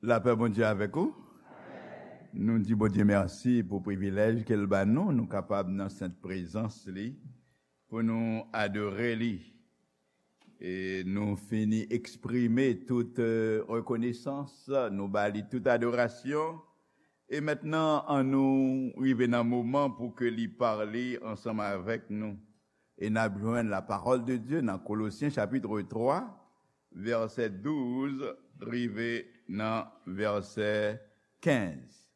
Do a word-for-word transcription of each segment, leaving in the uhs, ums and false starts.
Lapè Bondye avèk ou. Nou di Bondye mèsi pou privilèj ke l ban nou, nou kapab nan sent prezans li, pou nou adore li. E nou fini eksprime tout, eh, rekonesans, nou ba li tout adorasyon. E mentnan, annou rive nan moman pou ke li pale ansanm avèk nou. E n ap jwenn la parole de Dieu nan Kolosyen chapit twa, vèsè douz rive nan vèsè kenz.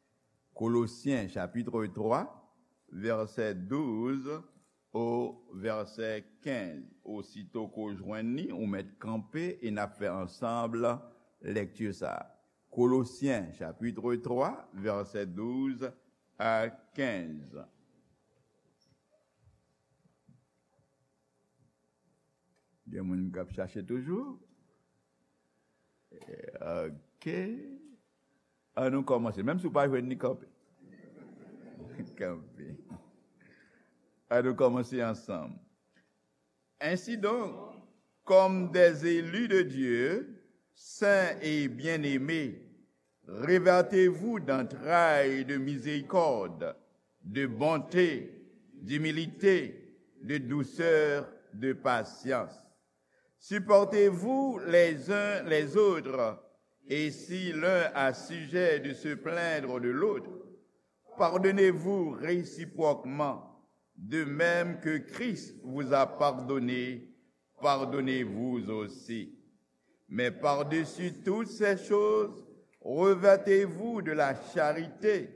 Kolosyen chapit twa, vèsè douz o vèsè kenz. Osito ke w jwenn li, ou mèt kanpe e n ap fè ansanm lekti sa a. Kolosyen chapit twa, vèsè douz a kenz. Gen moun k ap chache toujou? Ok. Annou kòmanse. Menm si w pa jwenn li, kanpe. Kanpe. Annou kòmanse ansanm. Ainsi donc, comme des élus de Dieu, saints et bien-aimés, revêtez-vous d'entrailles de miséricorde, de bonté, d'humilité, de douceur, de patience. Supportez-vous les uns les autres, et si l'un a sujet de se plaindre de l'autre, pardonnez-vous réciproquement, de même que Christ vous a pardonné, pardonnez-vous aussi. Mais par-dessus toutes ces choses, revêtez-vous de la charité,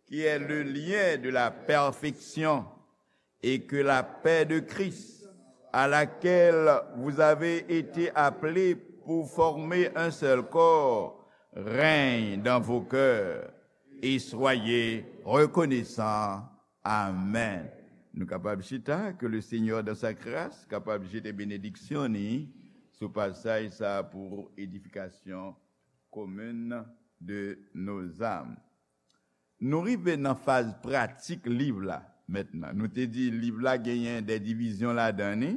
qui est le lien de la perfection, et que la paix de Christ, à laquelle vous avez été appelés pour former un seul corps, règne dans vos cœurs, et soyez reconnaissants. Amen. Nou kapab chita, que le Seigneur dans sa grâce kapab jete benediksyon ni sou pasaj sa pou edifikasyon commune de nos âmes. Nou rive nan faz pratik liv la mentnan. Nou te di liv la genyen de divizyon ladan li.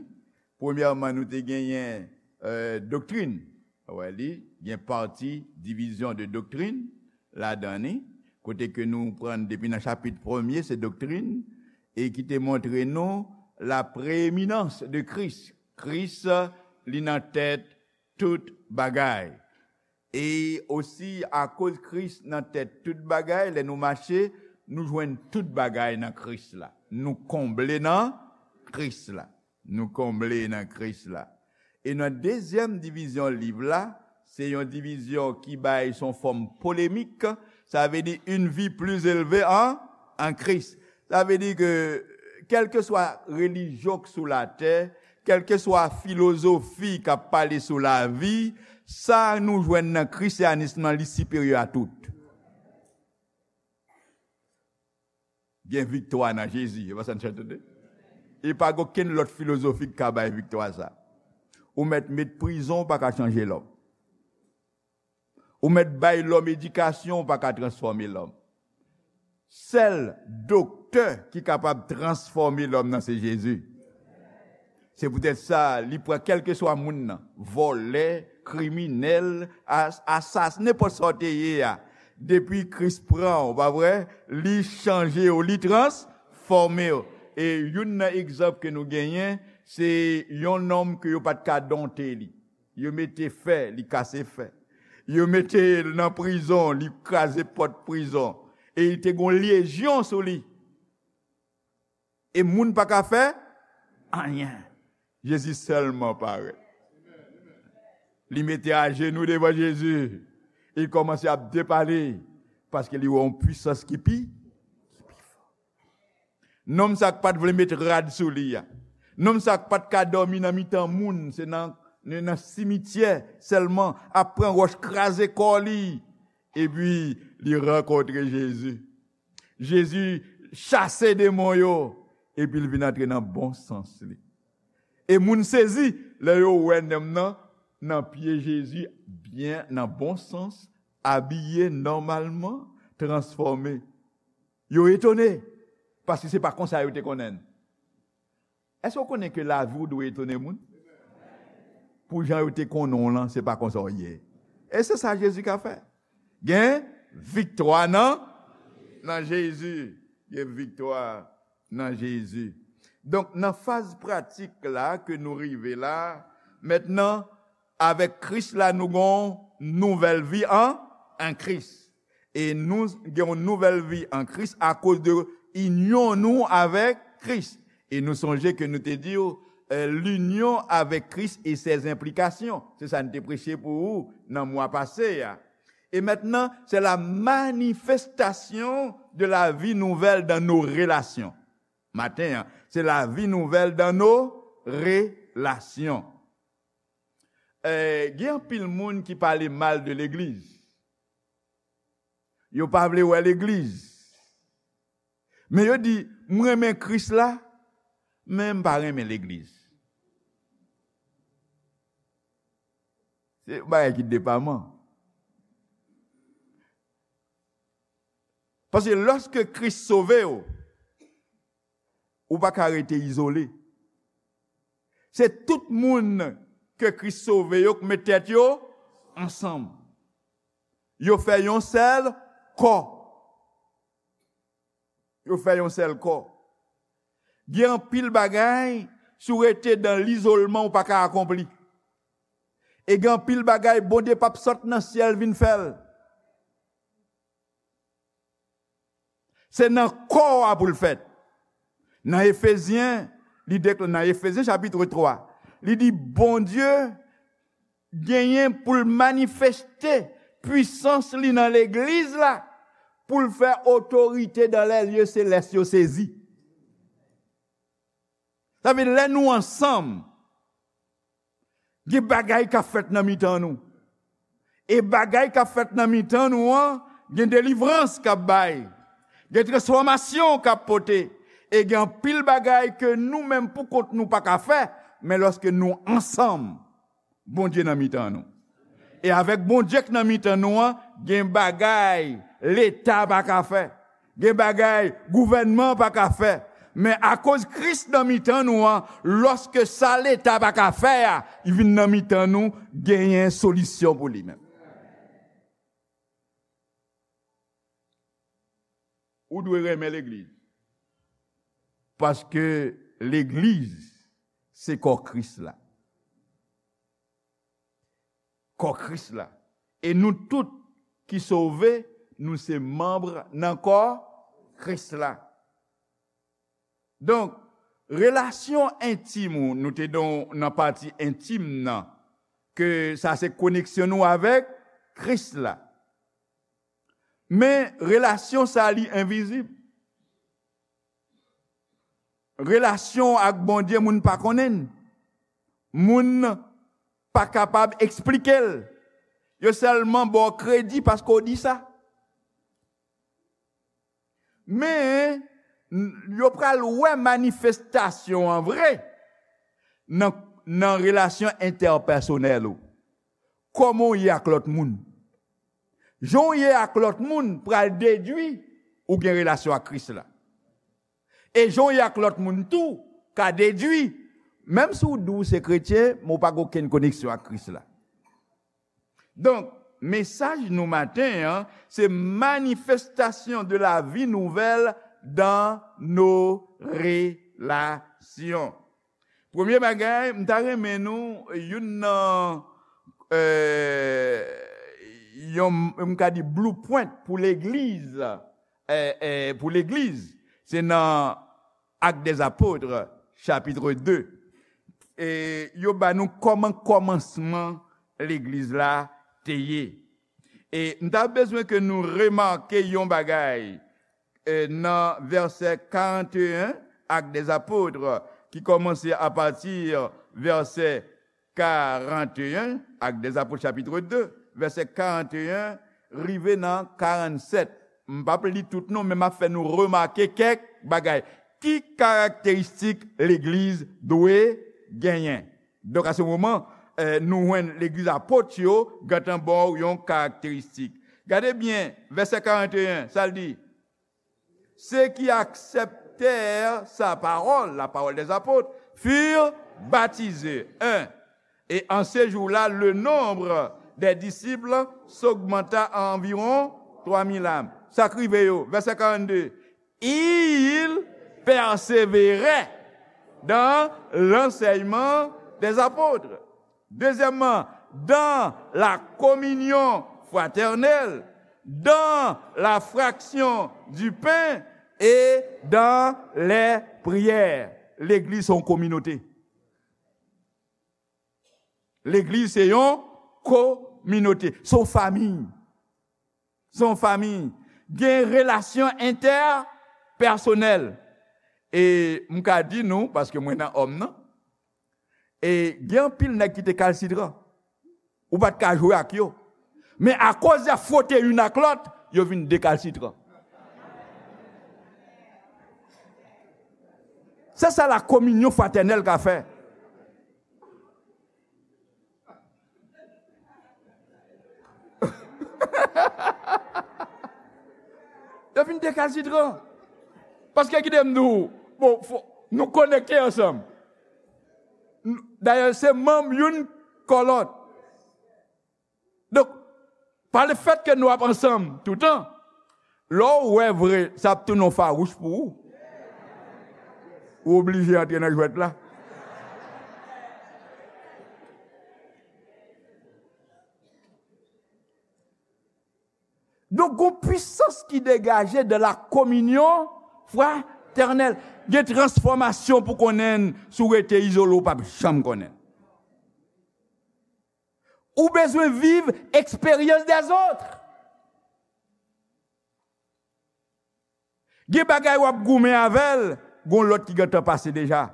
Premyèman, nou te genyen, eh, doktrin. Wè li, gen pati divizyon de doktrin ladan li, kote ke nou pran depi nan chapit premye, se doktrin, e ki te montre nou la preeminans de Kris. Kris, li nan tèt tout bagay. E osi, akoz Kris nan tèt tout bagay, lè nou mache, nou jwenn tout bagay nan Kris la. Nou konble nan Kris la. Nou konble nan Kris la. E nan dezyèm divizyon liv la, se yon divizyon ki bay son fòm polemik, sa vle di une vie plus élevée en, en Christ. Sa vle di ke, kèlkeswa relijyon k sou latè, kèlkeswa filozofi k ap pale sou lavi, sa nou jwenn nan krisyanis lan, li siperyè a tout. Gen viktwa nan Jezi, e pa sa n chante tande? E pa gen okenn lòt filozofi k ka bay viktwa sa. Ou mèt met prizon, ou pa ka chanje lòm. Ou mèt bay lòm edikasyon, ou pa ka transfòme lòm. Sèl doktè ki kapab transfòme lòm nan se Jezi. Se poutèt sa, li pran kèlkeswa moun nan, vòlè, kriminèl, as-, asas, nenpòt sa w te ye a. Depi Kris pran w, pa vre, li chanje w, li transfòme w. E youn nan egzanp ke nou genyen, se yon nonm ke yo pa t ka donte li. Yo mete fè, li kase fè. Yo mete l nan prizon, li kraze pòt prizon. E li te gon lejyon sou li. E moun pa ka fè anyen. Jezi sèlman parèt. Li mete ajenou devan Jezi. Li kòmanse ap depale. Paske li wè yon pwisans ki pi, ki pi fò. Nonm sa k pa t vle met rad sou li a. Nonm sa k pa t ka dòmi nan mitan moun, se nan, nan simityè sèlman, ap pran wòch kraze kò li. Epi, li rankontre Jezi. Jezi chase demon yo, epi l vin antre nan bon sans li. E moun sezi, lè yo wè nonm nan, nan pye Jezi, byen, nan bon sans, abiye nòmalman, transfòme. Yo etone, paske se pa konsa yo te konnen l. Èske w konnen ke lavi w dwe etone moun? Pou jan yo te konnen w lan, se pa konsa w ye. E se sa Jezi ka fè. Gen viktwa nan, nan Jezi. Gen viktwa nan Jezi. Donk, nan faz pratik la ke nou rive la, mentnan, avèk Kris la, nou gen yon nouvèl vi an, an Kris. E nou gen yon nouvèl vi an Kris akoz de inyon nou avèk Kris. E nou sonje ke nou te di w, eh, l'union avec Christ et ses implications. Se sa n te preche pou ou nan mwa pase a. Et maintenant, c'est la manifestation de la vie nouvelle dans nos relations. Maten an, c'est la vie nouvelle dans nos relations. Eh, gen anpil moun ki pale mal de legliz. Yo pa vle wè legliz. Men yo di, "M renmen Kris la, men m pa renmen legliz." Se yon bagay ki depaman. Paske lòske Kris sove w, ou pa ka rete izole. Se tout moun ke Kris sove yo k met tèt yo ansanm. Yo fè yon sèl kò. Yo fè yon sèl kò. Gen anpil bagay, si w rete dan lizolman, ou pa ka akonpli. E gen anpil bagay, Bondye p ap sot nan syèl vin fè l. Se nan kò a pou l fèt. Nan Efezyen, li dekla-, nan Efezyen chapit twa, li di, Bondye genyen pou l manifeste pwisans li nan legliz la, pou l fè otorite dans les lieux célestes yo sezi. Sa vle di, lè nou ansanm, gen bagay k ap fèt nan mitan nou. E bagay k ap fèt nan mitan nou an, gen delivrans k ap bay. Gen transfòmasyon k ap pote. E gen anpil bagay ke nou menm pou kont nou pa ka fè, men lòske nou ansanm, Bondye nan mitan nou. E avèk Bondye k nan mitan nou an, gen bagay Leta pa ka fè. Gen bagay gouvènman pa ka fè. Men akoz Kris nan mitan nou an, lòske sa Leta pa ka fè a, li vin nan mitan nou, genyen solisyon pou li menm. Ou dwe renmen legliz. Paske legliz, se kò Kris la. Kò Kris la. E nou tout ki sove, nou se manm nan kò Kris la. Donk, relasyon entim ou, nou te don nan pati entim nan, ke sa se koneksyon nou avèk Kris la. Men relasyon sa li envizib. Relasyon ak Bondye, moun pa konnen l. Moun pa kapab eksplike l. Yo sèlman ba w kredi paske w di sa. Men, n-, yo pral wè manifestasyon an vre nan, nan relasyon entèpèsonèl ou. Kòman w ye ak lòt moun? Jan w ye ak lòt moun pral dedwi ou gen relasyon ak Kris la. E jan w ye ak lòt moun tou ka dedwi, menm si w di w se kretyen, men w pa gen okenn koneksyon ak Kris la. Donk, mesaj nou maten an, se manifestation de la vie nouvelle dans nos relations. Premye bagay, m ta renmen nou, youn nan, eh, yon, m ka di blueprint pou legliz, eh, eh, pou legliz, se nan Actes des Apôtres, chapitre deux. E yo ba nou kòman kòmansman legliz la te ye. E m ta bezwen ke nou remake yon bagay, eh, nan vèsè karannteyen, Actes des Apôtres, ki kòmanse apati vèsè karannteyen, Actes des Apôtres chapitre deux, vèsè karannteyen rive nan karannsèt. M p ap li tout non, men m ap fè nou remake kèk bagay. Ki karakteristik legliz dwe genyen? Donk, a se moman, eh, nou jwenn legliz apot yo gentan ba w yon karakteristik. Gade byen, vèsè karannteyen, sa l di? Ceux qui acceptèrent sa parole, la parole des apôtres, furent baptisés. Un. Et en ce jour-là, le nombre des disciples s'augmenta à environ trois mille âmes. Sa k rive yo, vèsè karannde. Il persévérait dans l'enseignement des apôtres. Deuxièmement, dans la communion fraternelle, dans la fraction du pain et dans les prières. Legliz se yon kominote. Legliz se yon kominote. Se yon fanmi. Se yon fanmi. Gen relasyon entèpèsonèl. E m ka di nou, paske mwen nan òm nan, e gen anpil nèg ki te kalsitran. Ou pa t ka jwe ak yo. Men akoz y ap fwote youn ak lòt, yo vin dekalsitran. Se sa la kominyon fratènèl ka fè. Yo vin dekalsitran. Paske kite m di w, bon, fò, nou konekte ansanm. Dayè, se manm youn kò lòt. Donk, pa lefèt ke nou ap ansanm toutan, lè w wè vre, sa ap tounen yon fawouch pou ou. Ou oblije antre nan jwèt la. Donk, gon pwisans ki degaje de la communion fraternelle. Gen transfòmasyon pou konnen, si w rete izole, w p ap janm konnen. Ou bezwen viv eksperyans dèzòt. Gen bagay w ap goumen avè l, gon lòt ki gentan pase deja.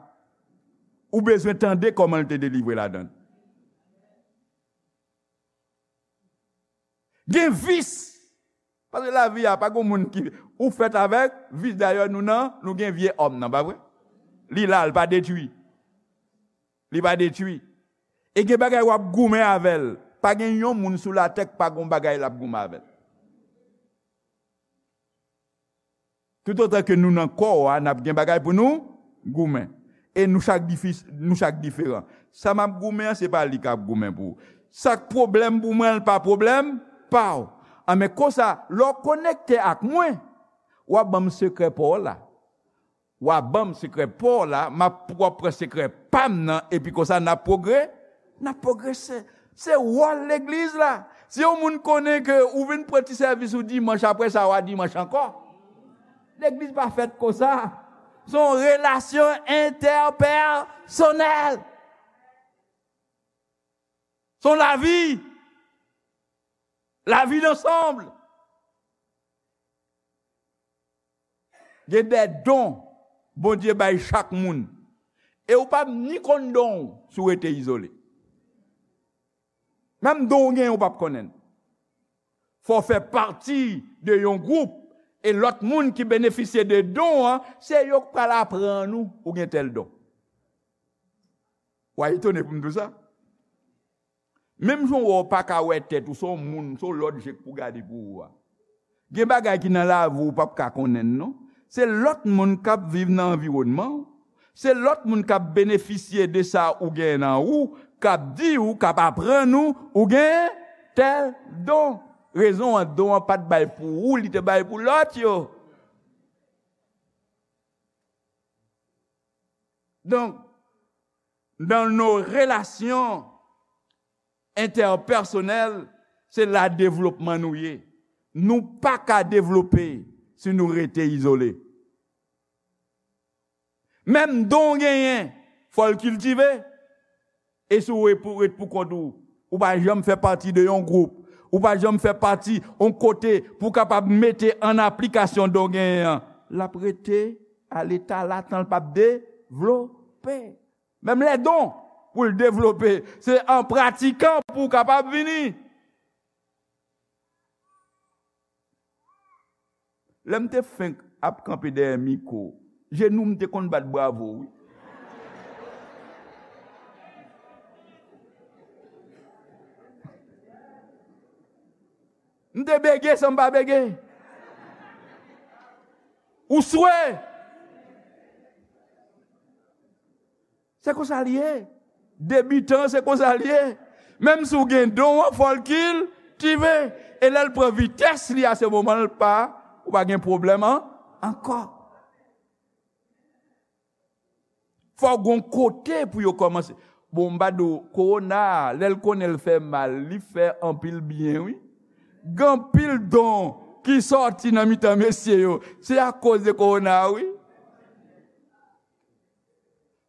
Ou bezwen tande kòman l te delivre ladan l. Gen vis. Paske lavi a, pa gen moun ki, ou fèt avèk vis. Dayè, nou nan, nou gen vye òm nan, pa vre? Li la, li pa detwi. Li pa detwi. E gen bagay w ap goumen avè l. Pa gen yon moun sou latè k pa gon bagay l ap goumen avè l. Toutotan ke nou nan kò a, n ap gen bagay pou nou goumen. E nou chak difi-, nou chak diferan. Sa m ap goumen an, se pa li k ap goumen pou ou. Sa k pwoblèm pou mwen, l pa pwoblèm pa w. Anben konsa, lè w konekte ak mwen, w ap ban m sekrè pa w la. W ap ban m sekrè pa w la, m ap, w ap pran sekrè pa m nan, epi konsa n ap pwogre-, n ap pwogrese. Se wòl legliz la. Si yon moun konnen ke ou vin pran ti sèvis ou dimanch, apre sa, w a dimanch ankò. Legliz pa fèt konsa. Se yon relasyon entèpèsonèl. Se yon lavi. Lavi dansanm. Gen de don Bondye bay chak moun. E ou p ap ni konn don w si w rete izole. Menm don w genyen, ou p ap konnen l. Fò w fè pati de yon gwoup, e lòt moun ki benefisye de don an, se yo k pral aprann ou, ou gen tèl don. W a etone pou m di w sa. Menm jan w wè w pa ka wè tèt ou, se yon moun, se yon lòt je k pou gade pou ou a. Gen bagay ki nan lavi w ou p ap ka konnen l non. Se lòt moun k ap viv nan anviwònman w. Se lòt moun k ap benefisye de sa ou gen nan ou, k ap di ou, k ap aprann ou, ou gen tèl don. Rezon an, don an pa t bay pou ou, li te bay pou lòt yo. Donk, dans nos relations interpersonnelles, se la devlopman nou ye. Nou pa ka devlope si nou rete izole. Menm don w genyen, fò l kiltive. E si w ret pou, ret pou kont ou, ou pa janm fè pati de yon gwoup, ou pa janm fè pati yon kote pou w kapab mete an aplikasyon don w genyen an, l ap rete a leta latan, l p ap devlope. Menm lè don pou l devlope, se an pratikan pou w kapab vini. Lè m te fenk ap kanpe dèyè mikwo, jenou m te konn bat bravo, wi. M te bege san m pa bege. Ou swe. Se konsa l ye. Debitan, se konsa l ye. Menm si w gen don an, fò l kiltive. E lè l pran vitès li a, se moman l pa, ou pa gen pwoblèm an, ankò. Fò w gon kote pou yo kòmanse. Bon, m pa di w, kowona a, lè l konnen l fè mal, li fè anpil byen, wi. Gen anpil don ki sòti nan mitan mesye yo. Se akoz de kowona a, wi.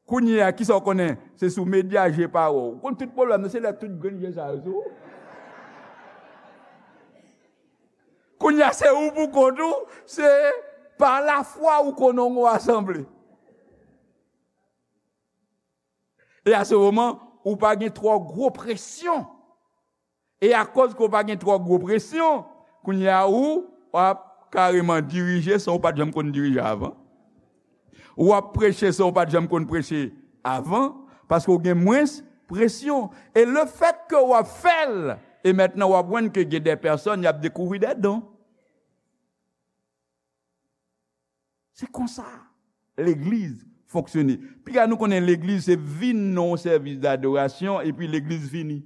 Kounye a, kisa w konnen? Se sou medya je pa wè w. Ou konn tout pwoblèm nan, se lè tout grenn je sa yo sou ou. Kounye a, se ou pou kont ou, se pa lafwa ou konnen w gon asanble. E a se moman, ou pa gen twò gwo presyon. E akoz ke w pa gen twò gwo presyon, kounye a ou, w ap kareman dirije san w pa t janm konn dirije avan. W ap preche san w pa t janm konn preche avan, paske w gen mwens presyon. E lefètke w ap fè l, e mentnan w ap wè ke gen de pèsòn y ap dekouvri de don. Se konsa legliz fonksyone. Piga nou konnen legliz se vin nan yon sèvis dadorasyon epi legliz fini.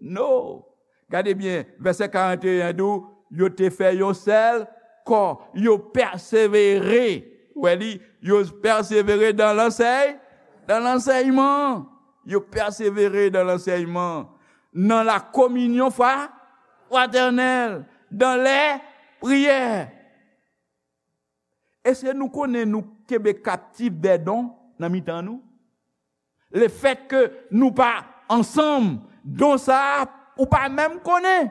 No. Gade byen, vèsè karant e en di w, yo te fè yon sèl kò, yo pèsevere. Ou wè li, yo pèsevere dan lansèy, dan lansèyman. Yo pèsevere dan lansèyman. Nan la kominyon fwa, fratènèl, dan lè priyè. Èske nou konnen nou kenbe kaptif de don nan mitan nou? Lefètke nou pa ansanm, don sa a, ou pa menm konnen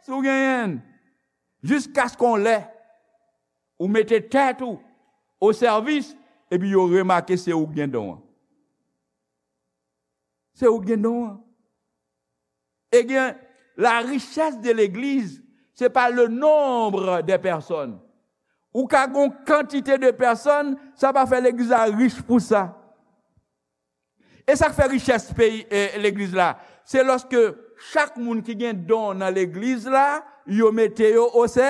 si w genyen l. Jiskaske yon lè, ou mete tèt ou o sèvis, epi yo remake se ou k gen don an. Se ou k gen don an. E gen, la richesse de l'église, c'est pas le nombre des personnes. Ou ka gon kantite de pèsòn, sa pa fè legliz la rich pou sa. E sa k fè richès peyi, e, legliz la, se lòske chak moun ki gen don nan legliz la, yo mete yo o sè,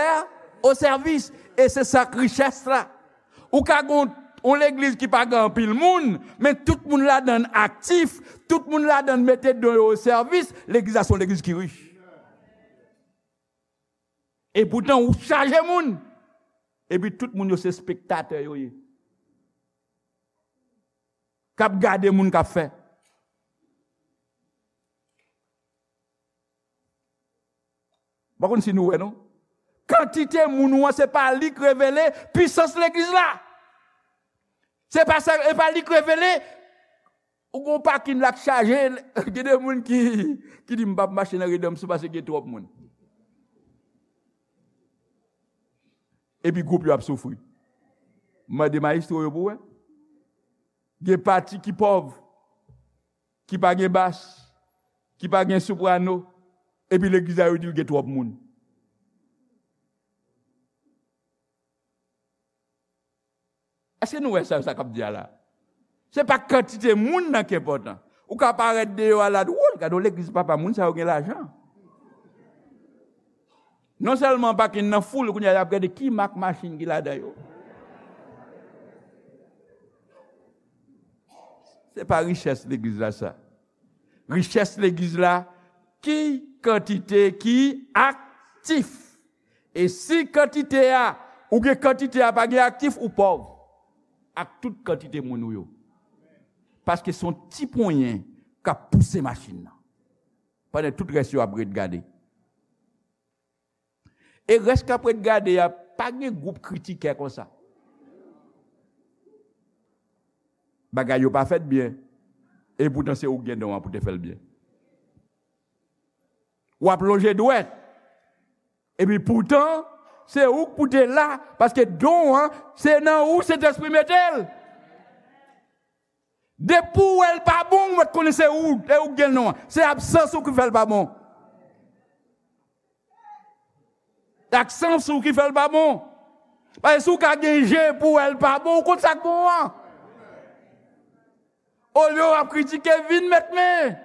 o sèvis. E se sa k richès la. Ou ka gon yon legliz ki pa gen anpil moun, men tout moun ladann aktif, tout moun ladann mete don yo o sèvis, legliz la se yon legliz ki rich. E poutan ou chaje moun. Epi tout moun yo se spektatè yo ye. K ap gade moun k ap fè. M pa konn si nou wè non. Kantite moun ou an, se pa li k revele pisans legliz la. Se pa sa, e pa li k revele. Ou gon pakin la k chaje, gen de moun ki, ki di m p ap mache nan Redanm sou paske gen twòp moun. Epi gwoup yo ap soufri. Mande mayestwo yo pou wè. Gen pati ki pòv, ki pa gen bas, ki pa gen soprano, epi legliz la yo di l gen twòp moun. Èske nou wè sa, sa k ap di a la? Se pa kantite moun nan ki enpòtan. Ou ka parèt deyò a la, dwòl, gade yon legliz papa, moun sa yo gen lajan. Non sèlman pakin nan foul, kounye a y ap gade ki mak machin ki ladan yo. Se pa richès legliz la sa. Richès legliz la, ki kantite ki aktif. E si kantite a, ou gen kantite a pa gen aktif, ou pòv. Ak tout kantite moun ou yo. Paske se yon ti ponyen k ap pouse machin nan. Pandan tout rès yo ap ret gade. E rès k ap ret gade a, pa gen gwoup kritikè konsa. Bagay yo pa fèt byen. E poutan se ou k gen don an pou te fè l byen. W ap lonje dwèt. Epi poutan, se ou k pou te la, paske don an, se nan ou Sentespri mete l. Depi w wè l pa bon, ou mèt konnen se ou, e ou k gen l non an. Se absans ou ki fè l pa bon. Absans ou ki fè l pa bon. Paske si w ka gen je pou w wè l pa bon, ou konn sa k bon an. Olye w ap kritike, vin met men.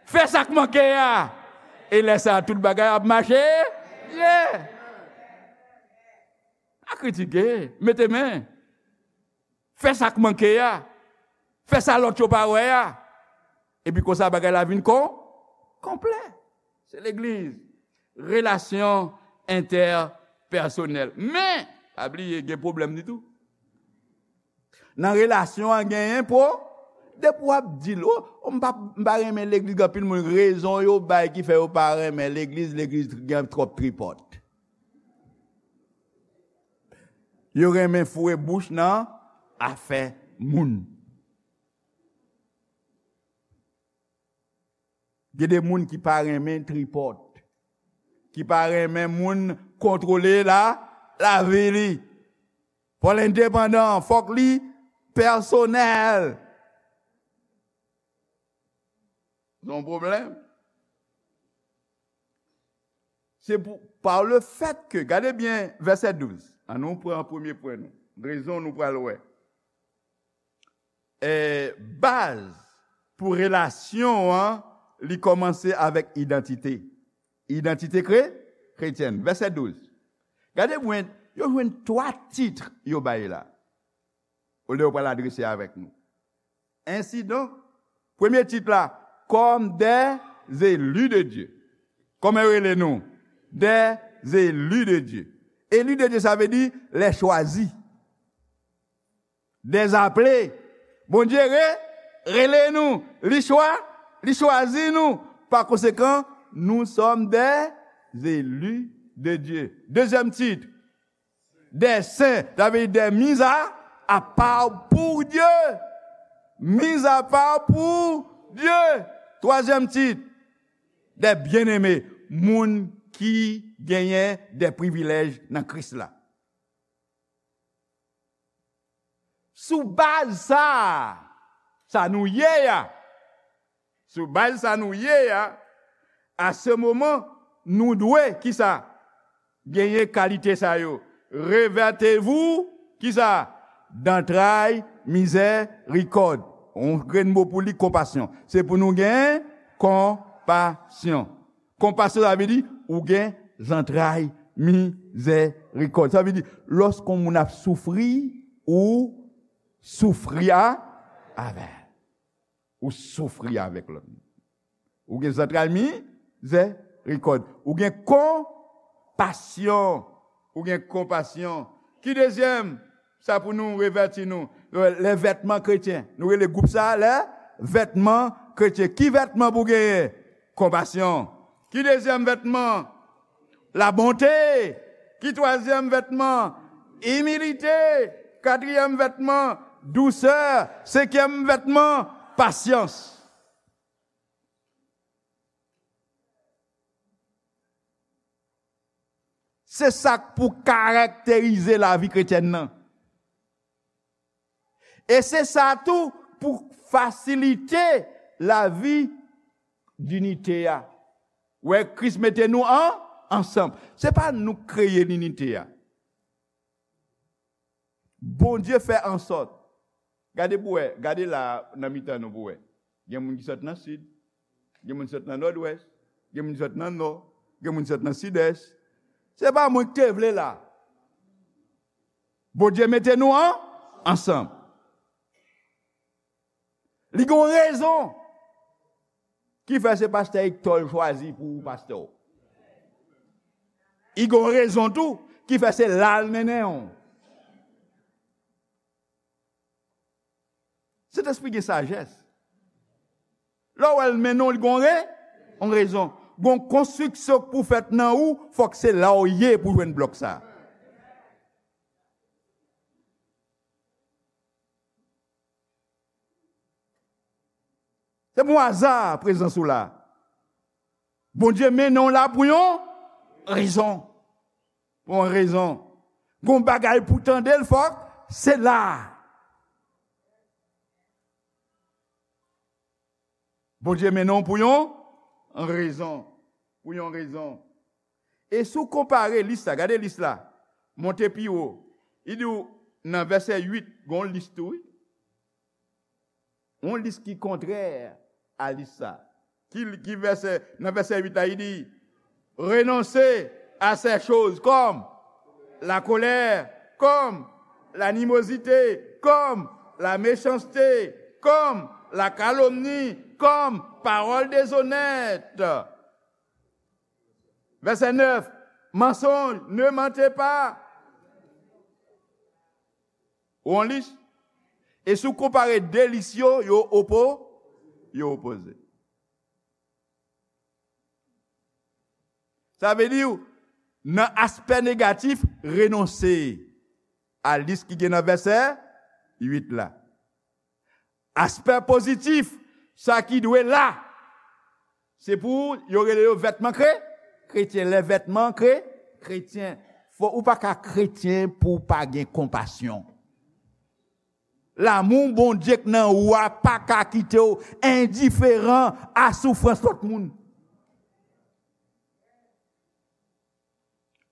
Fè sa k manke a. E lè sa a, tout bagay ap mache byen. Pa kritike, mete men. Fè sa k manke a. Fè sa lòt yo pa wè a. Epi konsa bagay la vin kon, Konplè. Se legliz. Relasyon entèpèsonèl. Men, pa bliye, gen pwoblèm li tou. Nan relasyon an, genyen pwo-, depi w ap di l, o, o, m pa, m pa renmen legliz, gen anpil moun, rezon yo bay ki fè yo pa renmen legliz, legliz gen twòp tripòt. Yo renmen foure bouch nan afè moun. Gen de moun ki pa renmen tripòt, ki pa renmen moun kontwole la, lavi li. Fò l endepandan, fòk li pèsonèl. Se yon pwoblèm. Se pou, par le fait que, gade byen vèsè douz. An nou pran premye pwen nou. Rezon nou pral wè. E, baz pou relasyon an, li kòmanse avèk idantite. Idantite kre-, kretyèn. Vèsè douz. Gade byen, yo jwenn twa tit yo bay la. Olye yo pral adrese avèk nou. Ensidonk, premye tit la, comme des élus de Dieu. Kòman yo rele nou? Des élus de Dieu. Élus de Dieu, sa vle di les choisis. Des appelés. Bondye re-, rele nou. Li chwa-, li chwazi nou. Pa konsekan, nous sommes des élus de Dieu. Dezyèm tit, des saints, sa vle di des mis à, à part pour Dieu. Mis à part pour Dieu. Twazyèm tit, des bien-aimés, moun ki genyen de privilèj nan Kris la. Sou baz sa, sa nou ye a, sou baz sa nou ye a, à ce moment, nou dwe, kisa? Genyen kalite sa yo. Revêtez-vous, kisa? D'entrailles miséricorde. Yon grenn mo pou li, konpasyon. Se pou nou gen konpasyon. Konpasyon, sa vle di, ou gen zantray mizèrikòd. Sa vle di, lòske yon moun ap soufri, ou soufri a, avè l. Ou soufri avèk lòt moun. Ou gen zantray mizèrikòd. Ou gen konpasyon. Ou gen konpasyon. Ki dezyèm? Sa pou nou revèti nou. Les vêtements chrétiens. Nou rele gwoup sa, les vêtements chrétiens. Ki vètman pou genyen? Konpasyon. Ki dezyèm vètman? La bonté. Ki twazyèm vètman? Imilite. Katriyèm vètman? Dousè. Senkyèm vètman? Pasyans. Se sa k pou karakterize lavi kretyèn nan. E se sa tou pou fasilite lavi dinite a. Wè, Kris mete nou an, ansanm. Se pa nou k kreye linite a. Bondye fè ansòt. Gade pou wè, gade la nan mitan nou pou wè. Gen moun ki sot nan sid, gen moun ki sot nan nòdwès, gen moun ki sot nan nò, gen moun ki sot nan sidès. Se pa mwen ki te vle la. Bondye mete nou an, ansanm. Li gen yon rezon ki fè se pastè Hector l chwazi pou pastè w. Li gen yon rezon tou ki fè se la l mennen w. Sentespri gen sajès. Lè w wè l mennen w, li gen yon re-, yon rezon. Gen yon konstriksyon k pou fèt nan ou, fòk se la w ye pou jwenn blòk sa. Se pa yon aza prezans ou la. Bondye mennen w la pou yon rezon. Pou yon rezon. Gon bagay pou tande l, fòk se la. Bondye mennen w pou yon rezon. Pou yon rezon. E si w konpare lis la, gade lis la, monte pi wo. Li di w nan vèsè uit, gon lis tou, wi. Yon lis ki kontrè a lis sa. Ki, ki vèsè, nan vèsè uit la, li di, renoncer à ces choses comme la colère, comme l'animosité, comme la méchanceté, comme La calomnie comme parole déshonnête. Verset neuf, mensonge, ne mentez pas. Ou on lis? E si w konpare de lis yo, yo opo, yo opoze. Sa vle di, nan aspè negatif, renonse a lis ki gen nan vèsè uit la. Aspè pozitif, sa ki dwe la, se pou yo rele yo vètman kre, kretyen. Lè vètman kre, kretyen. Fò, ou pa ka kretyen pou w pa gen konpasyon. Lanmou Bondye k nan ou a pa ka kite w endiferan a soufrans lòt moun.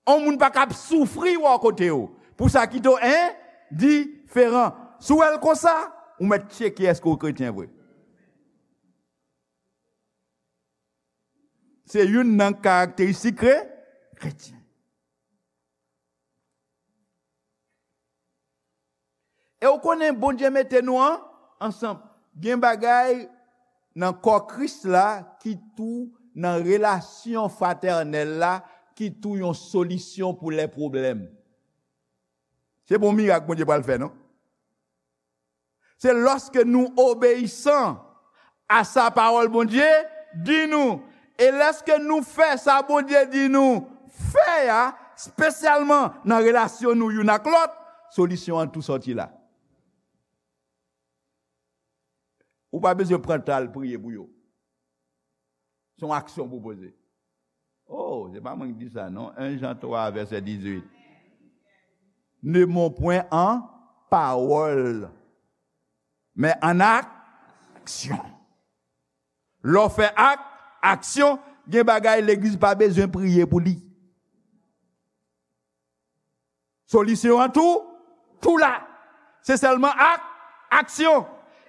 On moun pa ka ap soufri wè w kote w pou sa kite w endiferan. Si w wè l konsa, ou mèt tcheke èske w kretyen vre. Se youn nan karakteristik kre-, kretyen. E w konnen Bondye mete nou an, ansanm. Gen bagay nan kò Kris la ki tou nan relasyon fratènèl la, ki tou yon solisyon pou lè pwoblèm. Se pa yon mirak Bondye pral fè, non. Se lòske nou obeyisan a sa pawòl Bondye di nou. E lèske nou fè sa Bondye di nou fè a, espesyalman nan relasyon nou youn ak lòt, solisyon an tou sòti la. Ou pa bezwen pran tan al priye pou yo. Se yon aksyon pou poze. Oh, se pa mwen ki di sa, non. En Jan twa, vèsè dizuit. Ne mens point en parole, mais en action. Lè w fè ak, aksyon, gen bagay legliz pa bezwen priye pou li. Solisyon an tou, tou la. Se sèlman ak, aksyon.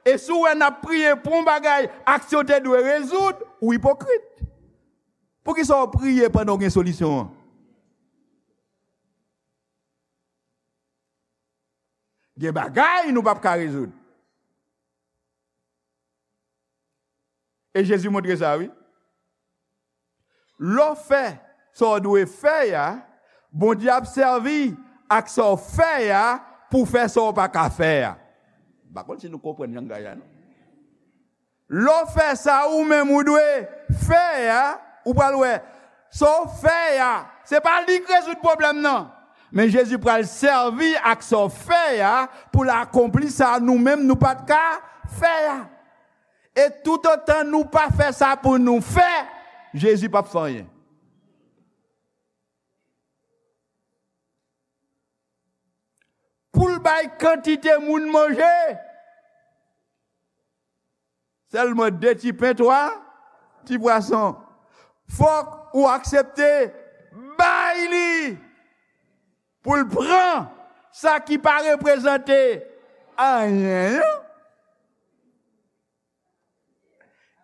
E si w wè n ap priye pou yon bagay, aksyon te dwe rezoud, ou ipokrit. Poukisa w priye pandan w gen solisyon an? Gen bagay nou p ap ka rezoud. E Jezi montre sa, wi. Lè w fè sa w dwe fè a, Bondye ap sèvi ak sa w fè a pou fè sa w pa ka fè a. M pa konn si nou konprann langaj la, non. Lè w fè sa ou menm ou dwe fè a, ou pral wè. Sa w fè a, se pa li k rezoud pwoblèm nan. Men Jezi pral sèvi ak sa w fè a pou l akonpli sa nou menm nou pa t ka fè a. E toutotan nou pa fè sa pou nou fè, Jezi p ap fè anyen. Pou l bay kantite moun manje, sèlman de ti pen, twa ti pwason. Fòk ou aksepte bay li pou l pran sa ki pa reprezante anyen an.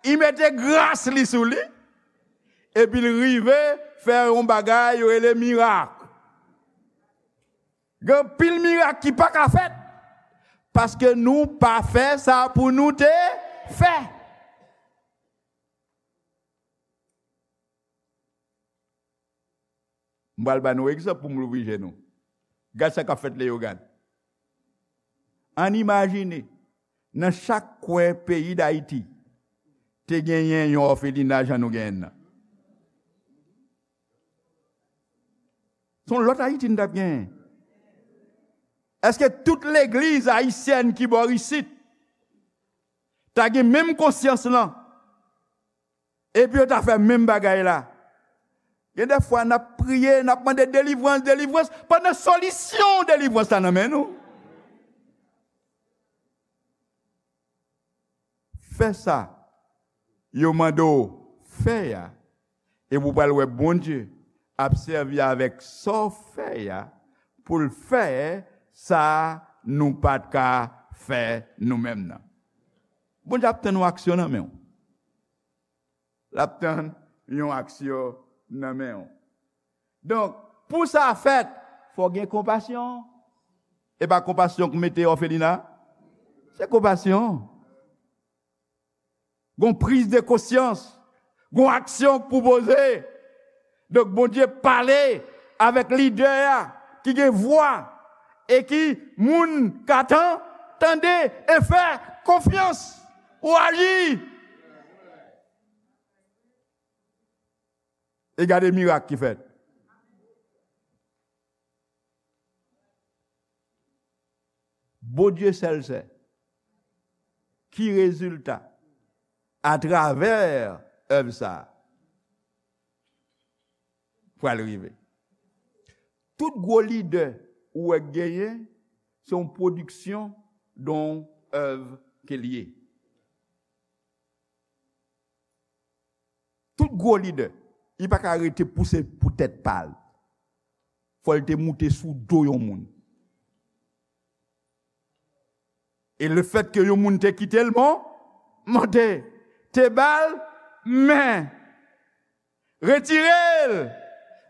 Li mete gras li sou li, epi l rive fè yon bagay yo rele mirak. Gen anpil mirak ki pa ka fèt, paske nou pa fè sa pou nou te fè. M pral ba nou egzanp pou m louvri je nou. Gad sa k ap fèt Leyogàn. Ann imajine, nan chak kwen peyi Dayiti, te genyen yon òfelina jan nou genyen nan. Se yon lòt Ayiti n t ap genyen. Èske tout legliz ayisyèn ki bò isit ta gen menm konsyans lan? Epi yo ta fè menm bagay la. Gen de fwa n ap priye, n ap mande delivrans, delivrans, pandan solisyon delivrans la nan men nou. Fè sa yo mande w fè a, epi w pral wè Bondye ap sèvi avèk sa w fè a pou l fè sa nou pa t ka fè nou menm nan. Bondye ap tann yon aksyon nan men w. L ap tann yon aksyon nan men w. Donk, pou sa fèt, fò gen konpasyon. E pa konpasyon k mete òfelina. Se konpasyon. Gon priz de konsyans, gon aksyon k pou poze. Donk, Bondye pale avèk lidè a ki gen vwa e ki moun ka tan, tande e fè konfyans pou aji. E gade mirak ki fèt. Bondye sèl sè ki rezilta atravè èv sa a pral rive. Tout gwo lidè ou wè k genyen, se yon pwodiksyon de yon èv ke l ye. Tout gwo lidè, li pa ka rete pouse pou tèt pa l. Fò l te moute sou do yon moun. E lefètke yon moun te kite l mon-, monte, te ba l men, retire l,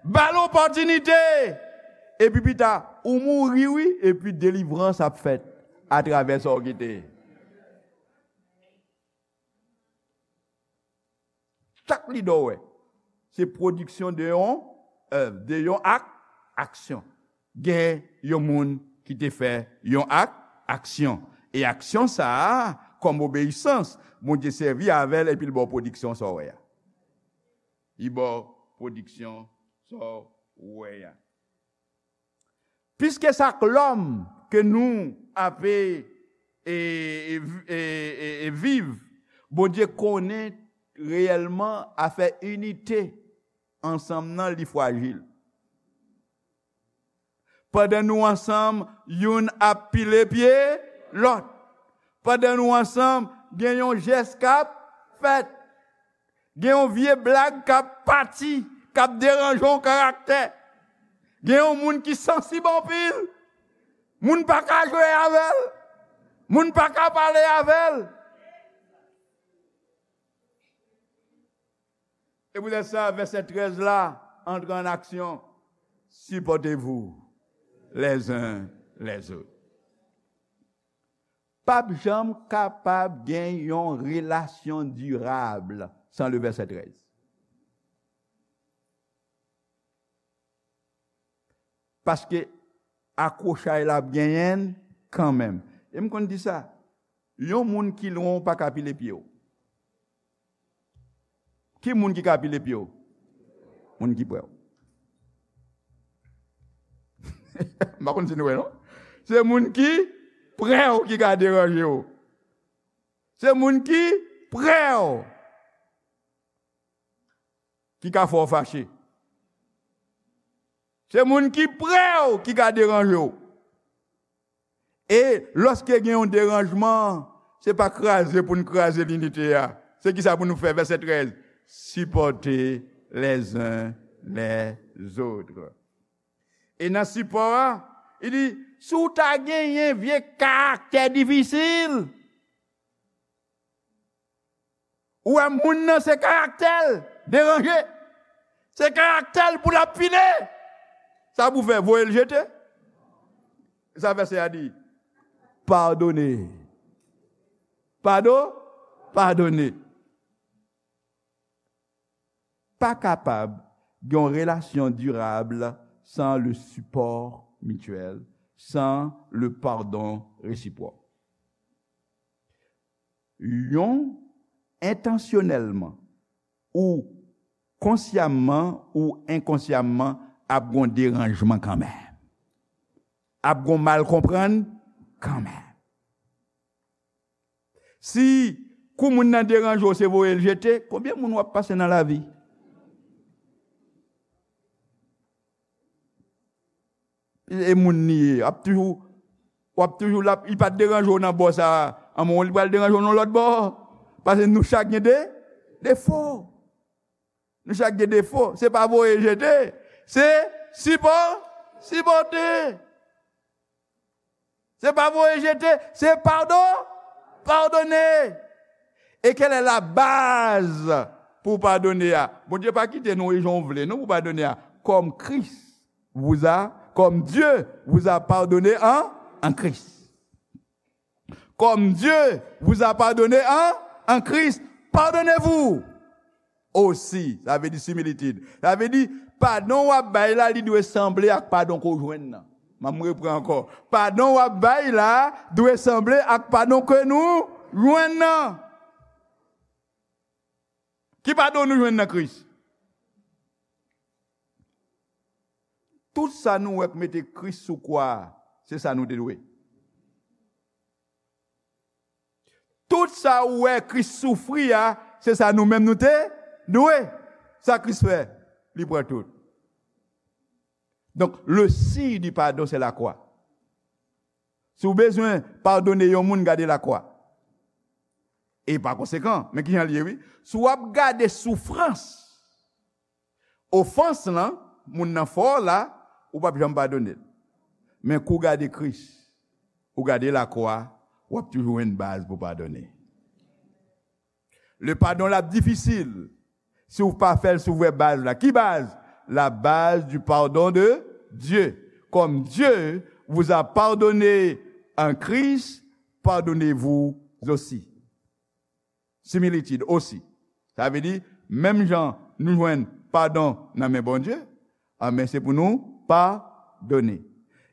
ba l opòtinite, epi pita, ou mouri wi, epi delivrans ap fèt atravè sa w kite. Chak lidè w wè, se pwodiksyon de yon èv, de yon ak, aksyon. Gen yon moun ki te fè yon ak, aksyon. E aksyon sa a, kòm obeyisans, Bondye sèvi avè l epi l ba w pwodiksyon sa w wè a. Li ba w pwodiksyon sa w wè a. Piske sa k lòm ke nou ape e, e, e, e, e viv, Bondye konnen reyèlman afè inite ansanm nan li frajil. Pandan nou ansanm, youn ap pile pye lòt. Pandan nou ansanm, gen yon jès k ap fèt. Gen yon vye blag k ap pati, k ap deranje yon karaktè. Gen yon moun ki sansib anpil. Moun pa ka jwe avè l. Moun pa ka pale avè l. E poutèt sa, vèsè trèz la antre an aksyon. Supportez-vous les uns les autres. P ap janm kapab gen yon relasyon dirab san le vèsè trèz. Paske akwochay la ap genyen l kanmenm. E m konn di sa, yon moun ki lwen w pa ka pile pye w. Ki moun ki ka pile pye w? Moun ki prè w. M pa konn si nou wè, non? Se moun ki prè w ki ka deranje w. Se moun ki prè w ki ka fè w fache. Se moun ki prè w ki ka deranje w. E lòske gen yon deranjman, se pa kraze pou n kraze linite a. Se kisa pou nou fè? Vèsè trèz, supportez les uns les autres. E nan sipò a, li di, si w ta genyen vye karaktè difisil, ou wè moun nan se karaktè l deranje. Se karaktè l pou l ap pile. Sa pou fè, voye l jete. Sa vèsè a di, padone. Pado-, padone. Pa kapab gen yon relasyon dirab san le sipò mityèl, san le padon resipwòk. Yon, entansyonèlman ou konsyamman ou enkonsyamman, ap gon deranjman kanmenm. Ap gon mal konprann kanmenm. Si kou moun nan deranje w, se voye l jete, konbyen moun w ap pase nan lavi? E moun li ye, ap toujou, w ap toujou la, li pa t deranje w nan bò sa a, anmwey, li pral deranje w nan lòt bò. Paske nou chak gen de, defo. Nou chak gen defo. Se pa voye jete, se sipò-, sipòte. Se pa voye jete, se pado-, padone. E kèl è la baz pou padone a? Bondye pa kite nou e jan w vle, non, pou padone a. Comme Christ vous a, comme Dieu vous a pardonné en, en Christ. Comme Dieu vous a pardonné en, en Christ. Pardonnez-vous aussi, sa vle di similitid. Sa vle di, padon w ap bay la, li dwe sanble ak padon ke w jwenn nan. M ap repran ankò. Padon w ap bay la dwe sanble ak padon ke nou jwenn nan. Ki padon nou jwenn nan Kris? Tout sa nou wè k mete Kris sou kwa a, se sa nou te dwe. Tout sa ou wè Kris soufri a, se sa nou menm nou te dwe. Sa Kris fè, li pran tout. Donc, le signe du pardon, c'est la croix. Si w bezwen padone yon moun, gade lakwa. E pa konsekan, men kijan l ye, wi. Si w ap gade soufrans, ofans lan, moun nan fè w la, ou p ap janm padone l. Men kou w gade Kris, ou gade lakwa, w ap toujou jwenn baz pou padone. Le padon la difisil. Si w pa fè l sou vrè baz la. Ki baz? La base du pardon de Dieu. Comme Dieu vous a pardonné en Christ, pardonnez-vous aussi. Similitid osi. Sa vle di, menm jan nou jwenn padon nan men Bondye, anben se pou nou padone.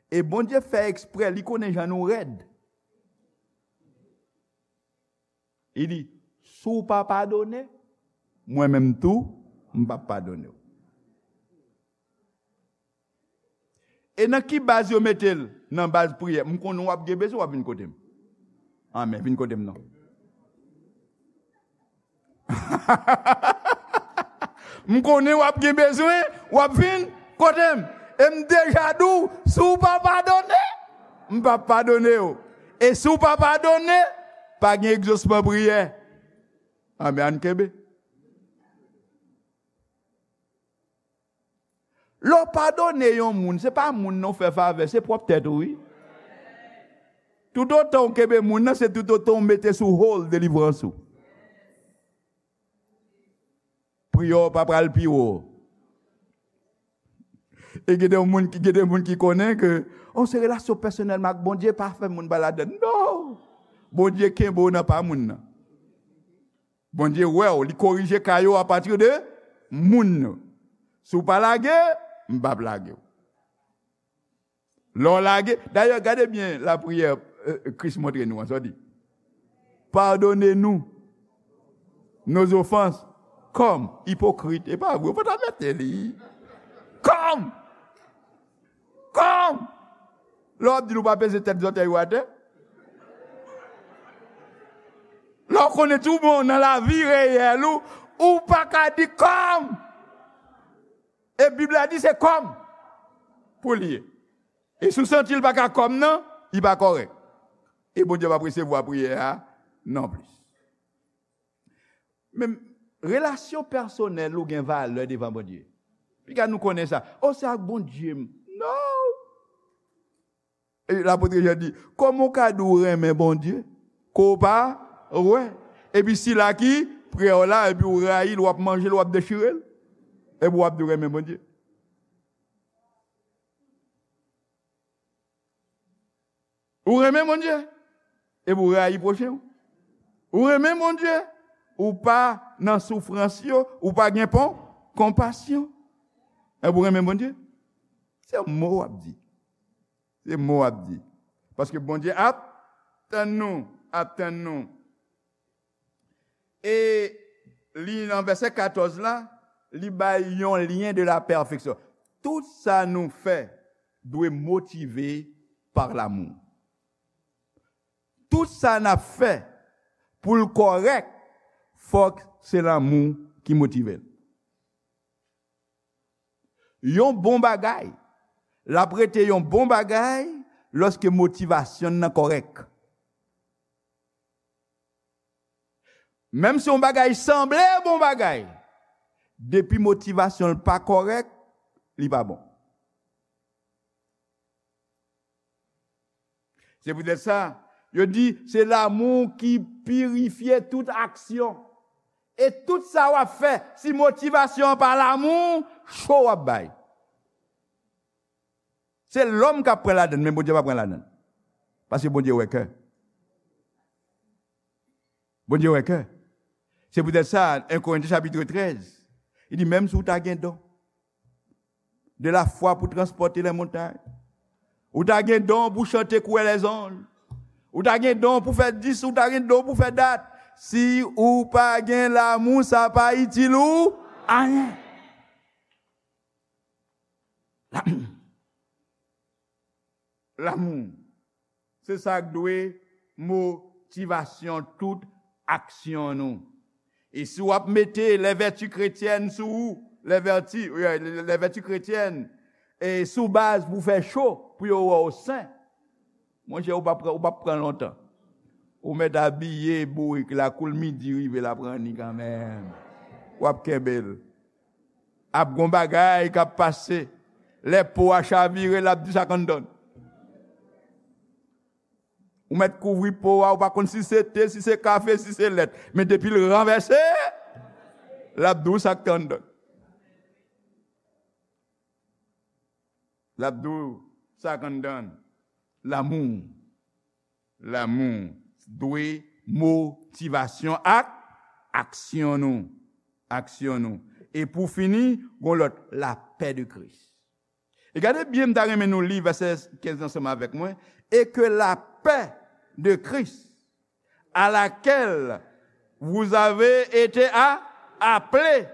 E Bondye fè eksprè, li konnen jan nou rèd. Li di, si w pa padone, mwen menm tou, m p ap padone w. E nan ki baz yo mete l? Nan baz priyè. M konnen w ap gen bezwen, w ap vin kote m. Anmè, vin kote m non. M konnen w ap gen bezwen, w ap vin kote m. E m deja di w, si w pa padone, m p ap padone w. E si w pa padone, pa gen egzosman priyè. Anmè, ann kenbe. Lè w padone yon moun, se pa moun nan w fè favè, se pwòp tèt ou, wi. Toutotan w kenbe moun nan, se toutotan w mete sou hold delivrans ou. Priyè w pa pral pi wo. E gen de moun ki, gen de moun ki konnen ke, oh, se relasyon pèsonèl m ak Bondye, pa fè moun pa ladann. Non! Bondye kenbe w nan pa moun nan. Bondye wè w, li korije ka yo apati de moun yo. Si w pa lage, m p ap lage w. Lè w lage, dayè, gade byen lapriyè, euh, Kris montre nou an, sa w di, pardonnez-nous nos offenses, comme, ipokrit, e pa vre, ou pa ta mete li. Comme! Comme! Lè w ap di l ou pa peze tèt zòtèy ou atè. Lè w konnen tou bon nan lavi reyèl ou, ou pa ka di comme! E Bib la di se comme pou l ye. E si w santi l pa ka comme nan, li pa kòrèk. E Bondye p ap resevwa priyè a non plis. Men, relasyon pèsonèl ou gen valè devan Bondye. Piga nou konnen sa. Oh, se ak Bondye m. Non! E lapot Jan di, kòman w ka di w renmen Bondye, ke w pa wè? Epi sila ki prè w la, epi w rayi l, w ap manje l, w ap dechire l, epi w ap di w renmen Bondye. Ou renmen Bondye, epi w rayi pwochen w. Ou renmen Bondye, ou pa nan soufrans yo, ou pa gen pon, konpasyon. Epi w renmen Bondye, se mo w ap di. Se mo w ap di. Paske Bondye ap tann nou, ap tann nou. E li nan vèsè katòz la, li bay yon lyen de la pèfeksyon. Tout sa nou fè dwe motive pa lamou. Tout sa n ap fè pou l kòrèk, fòk se lanmou ki motive l. Yon bon bagay, l ap rete yon bon bagay lòske motivasyon l nan kòrèk. Menm si yon bagay sanble bon bagay, depi motivasyon l pa kòrèk, li pa bon. Se poutèt sa, yo di, se lanmou ki pirifye tout aksyon. E tout sa w ap fè, si motivasyon an pa lanmou, cho w ap bay. Se lòm k ap pran ladann, men Bondye pa pran ladann. Paske Bondye wè kè. Bondye wè kè. Se poutèt sa, en Korentyen chapit trèz, li di, menm si w ta gen don de lafwa pou transpòte lè montay, ou ta gen don pou chante kwè lèzanj, ou ta gen don pou fè dis, ou ta gen don pou fè dat, si ou pa gen lamou, sa pa itil ou anyen. Lamou. Lamou. Se sa k dwe motivasyon tout aksyon nou. E si w ap mete les vertus chrétiennes sou ou, les vertus, euh, les vertus chrétiennes, e sou baz pou fè cho, pou yo wè w sen, monchè, ou p ap pran, ou p ap pran lontan. Ou mèt abiye bourik la, kou l midi rive, l ap ranni kanmenm. W ap kenbe l. Ap gon bagay k ap pase. Lè po a chavire, l ap di sa k anndan. Ou mèt kouvri po a, ou pa konn si se te, si se kafe, si se lèt. Men depi l ranvèse, l ap di w sa k te anndan. L ap di w sa k anndan. Lamou. Lamou dwe motivasyon ak aksyon nou. Aksyon nou. E pou fini, gon lòt, lapè de Kris. E gade byen, m ta renmen nou li vèsè kenz ansanm avèk mwen. Et que la paix de Christ, à laquelle vous avez été a-, appelés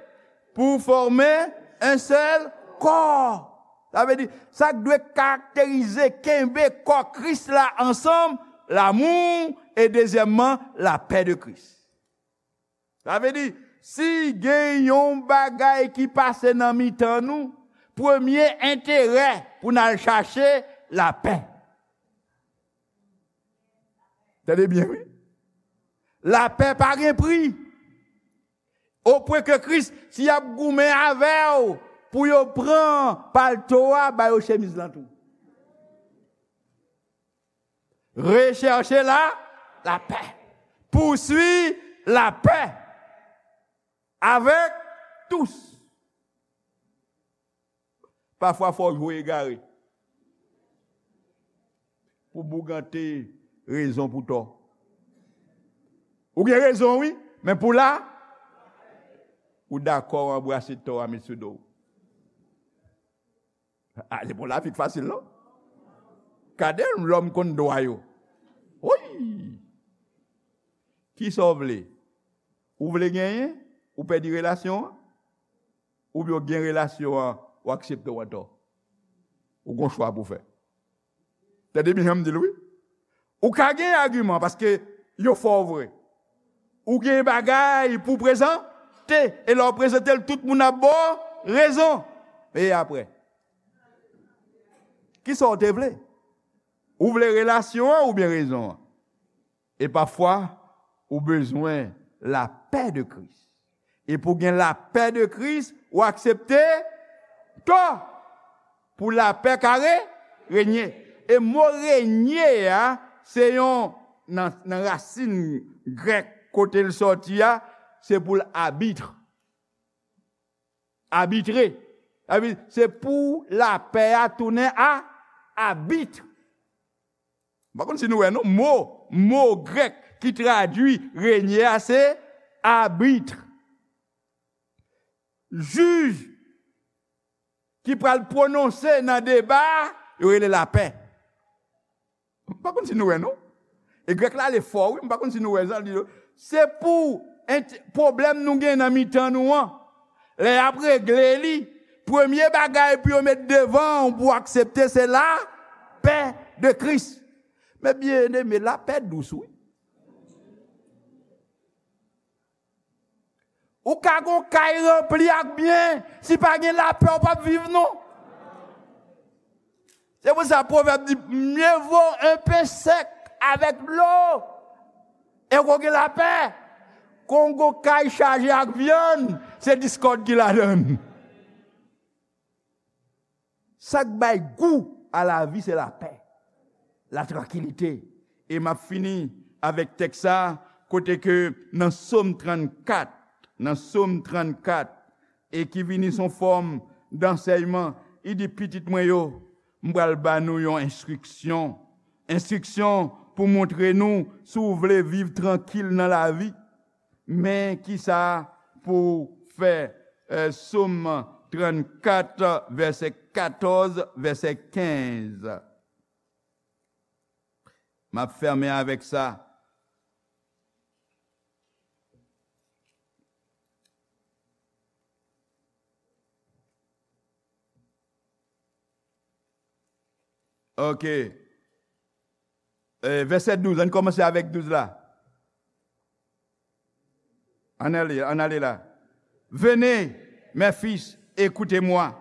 pour former un seul corps. Sa vle di, sa k dwe karakterize, kenbe kò Kris la ansanm, lamou, e dezyèmman, lapè de Kris. Sa vle di, si gen yon bagay ki pase nan mitan nou, premye enterè pou n al chache lapè. Tande byen, wi. Lapè pa gen pri. Opwen ke Kris, si y ap goumen avè w pou yo pran palto a, ba yo chemiz lan tou. Recherchez la, la paix. Poursuis la paix avec tous. Pafwa, fò w jwe egare pou bougante rezon pou tò. Ou gen rezon, wi, men pou la, ou dakò anbrase tò a, met sou do w. Ah, se pou lavi k fasil, non? Gade lòm konn dwa yo. Wi! Kisa w vle? Ou vle genyen? Ou pèdi relasyon an? Oubyen w gen relasyon an, w aksepte w antò? Ou gon chwa pou fè. Tande byen jan m di l, wi. Ou ka gen agiman paske yo fè w vre. Ou gen bagay pou prezante, e lè w prezante l, tout moun ap ba w rezon. E apre? Kisa w te vle? Ou vle relasyon an oubyen rezon an? E pafwa, ou bezwen lapè de Kris. E pou gen lapè de Kris, ou aksepte tò pou lapè ka re-, renye. E mo renye a, se yon, nan, nan rasin grèk kote l sòti a, se pou l abitre. Abitre. Sa vle di, se pou lapè a tounen a, abit. M pa konn si nou wè, non, mo, mo grèk ki tradui renye a, se abit. Jij ki pral pwononse nan deba, yo rele lapè. M pa konn si nou wè, non. E grèk la ale fò, wi, m pa konn si nou wè sa, li di, se pou ent-, pwoblèm nou gen nan mitan nou an. Lè y ap regle li, premye bagay pou yo met devan w pou w aksepte, se lapè de Kris. Men byeneme, lapè dous, wi. Ou ka gon kay ranpli ak byen, si pa gen lapè, ou p ap viv, non. Se pou sa pwovèb di, mieux vaut un pain sec avec de l'eau, e w gen lapè, ke w gon kay chaje ak vyann, se diskòd ki ladan l. Sa k bay gou a lavi, se lapè, latrankilite. E m ap fini avèk tèks sa, kote ke nan Sòm trannkat, nan Sòm trannkat, e ki vini son fòm dansèyman, li di, pitit mwen yo, m pral ba nou yon enstriksyon. Enstriksyon pou montre nou si w vle viv trankil nan lavi. Men ki sa pou fè, eh, Sòm trannkat, vèsè katòz, vèsè kenz. M ap fèmen avèk sa. Ok. Eh, vèsè douz, ann kòmanse avèk douz la. Ann ale, ann ale la. Venez, mes fils, écoutez-moi.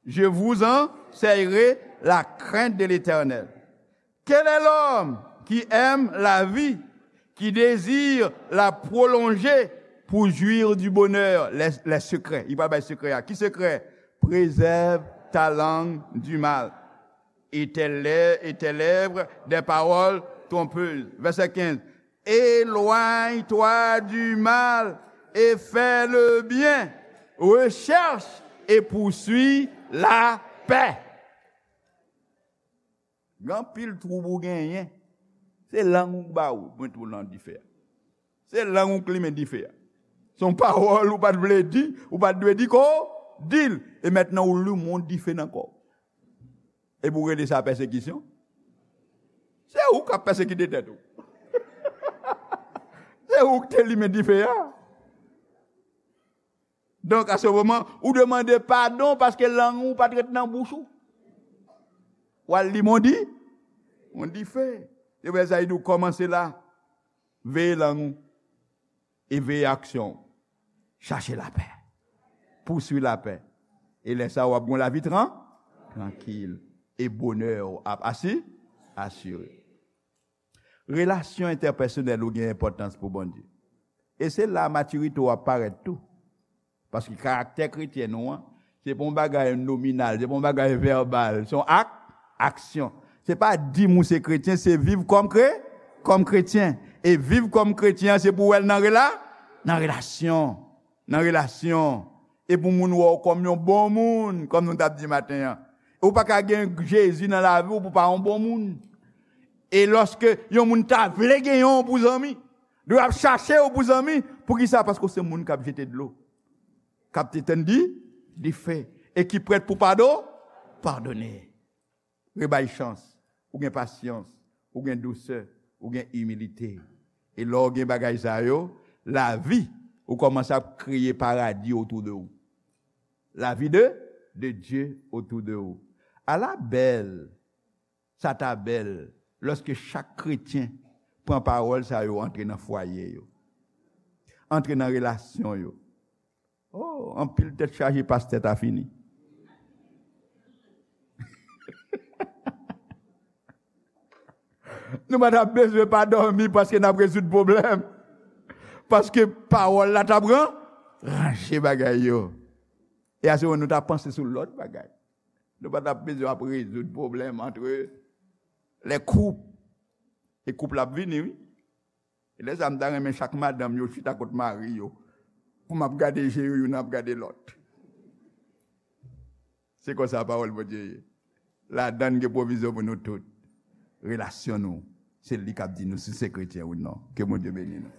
Je vous enseignerai la crainte de l'Éternel. Quel est l'homme qui aime la vie, qui désire la prolonger pour jouir du bonheur? Les, les secrets. Li pral bay sekrè a. Ki sekrè? Préserve ta langue du mal et tes lè-, et tes lèvres des paroles trompeuses. Vèsè kenz. Éloigne-toi du mal et fais le bien. Recherche et poursuis la paix. Gen anpil twoub ou genyen. Se lang ou k ba ou, mete w nan dife a. Se lang ou k limen dife a. Se yon pawòl ou pa t vle di, ou pa t dwe di ko, di l. E mentnan ou limen yon dife nan kò w. Epi w rele sa pèsekisyon? Se ou k ap pèsekite tèt ou. Se ou k te limen dife a. Donk, a se moman, ou demande padon paske lang ou pa t ret nan bouch ou. W al li mondi, mondi fe. Se pou sa li di w kòmanse la. Veye lang ou. E veye aksyon w. Chache lapè. Pouswi lapè. E lè sa a, w ap gen yon lavi tran-, trankil. E bonè w ap asi-, asire. Relasyon entèpèsonèl ou gen enpòtans pou Bondye. E se la matirite w ap parèt tou. Paske karaktè kretyen nou an, se pa yon bagay nominal, se pa yon bagay vèbal, se yon ak-, aksyon. Se pa di m ou se kretyen, se viv kòm kre-, kòm kretyen. E viv kòm kretyen an, se pou w wè l nan rela-, nan relasyon. Nan relasyon. E pou moun wè w kòm yon bon moun, kòm nou t ap di maten an. E ou pa ka gen Jezi nan lavi w pou w pa yon bon moun. E lòske yon moun ta vle gen yon pou zanmi, li ap chache w pou zanmi. Poukisa? Paske w se moun k ap jete dlo, k ap etenn di, dife, e ki prèt pou pado-, padone. Rebay chans, ou gen pasyans, ou gen dousè, ou gen imilite. E lè w gen bagay sa yo, lavi, ou kòmanse ap kreye paradi otou de ou. La vie de, de Dieu autour de ou. Ala bèl, sa ta bèl, lòske chak kretyen pran pawòl sa yo antre nan fwaye yo, antre nan relasyon yo. Oh, anpil tèt chaje pastè ta fini. Nou pa t ap bezwen pa dòmi paske n ap rezoud pwoblèm. Paske pawòl la t ap ran-, ranje bagay yo. E a se moman nou ta panse sou lòt bagay. Nou pa t ap bezwen ap rezoud pwoblèm antre lè koup. E koup la ap vini, wi. E lè sa a, m ta renmen chak madanm yo chita kot mari yo, pou m ap gade je yo, youn ap gade lòt. Se konsa pawòl Bondye ye. Ladan l gen pwovizyon pou nou tout. Relasyon nou, se li k ap di nou si se kretyen ou non. Ke Bondye beni nou.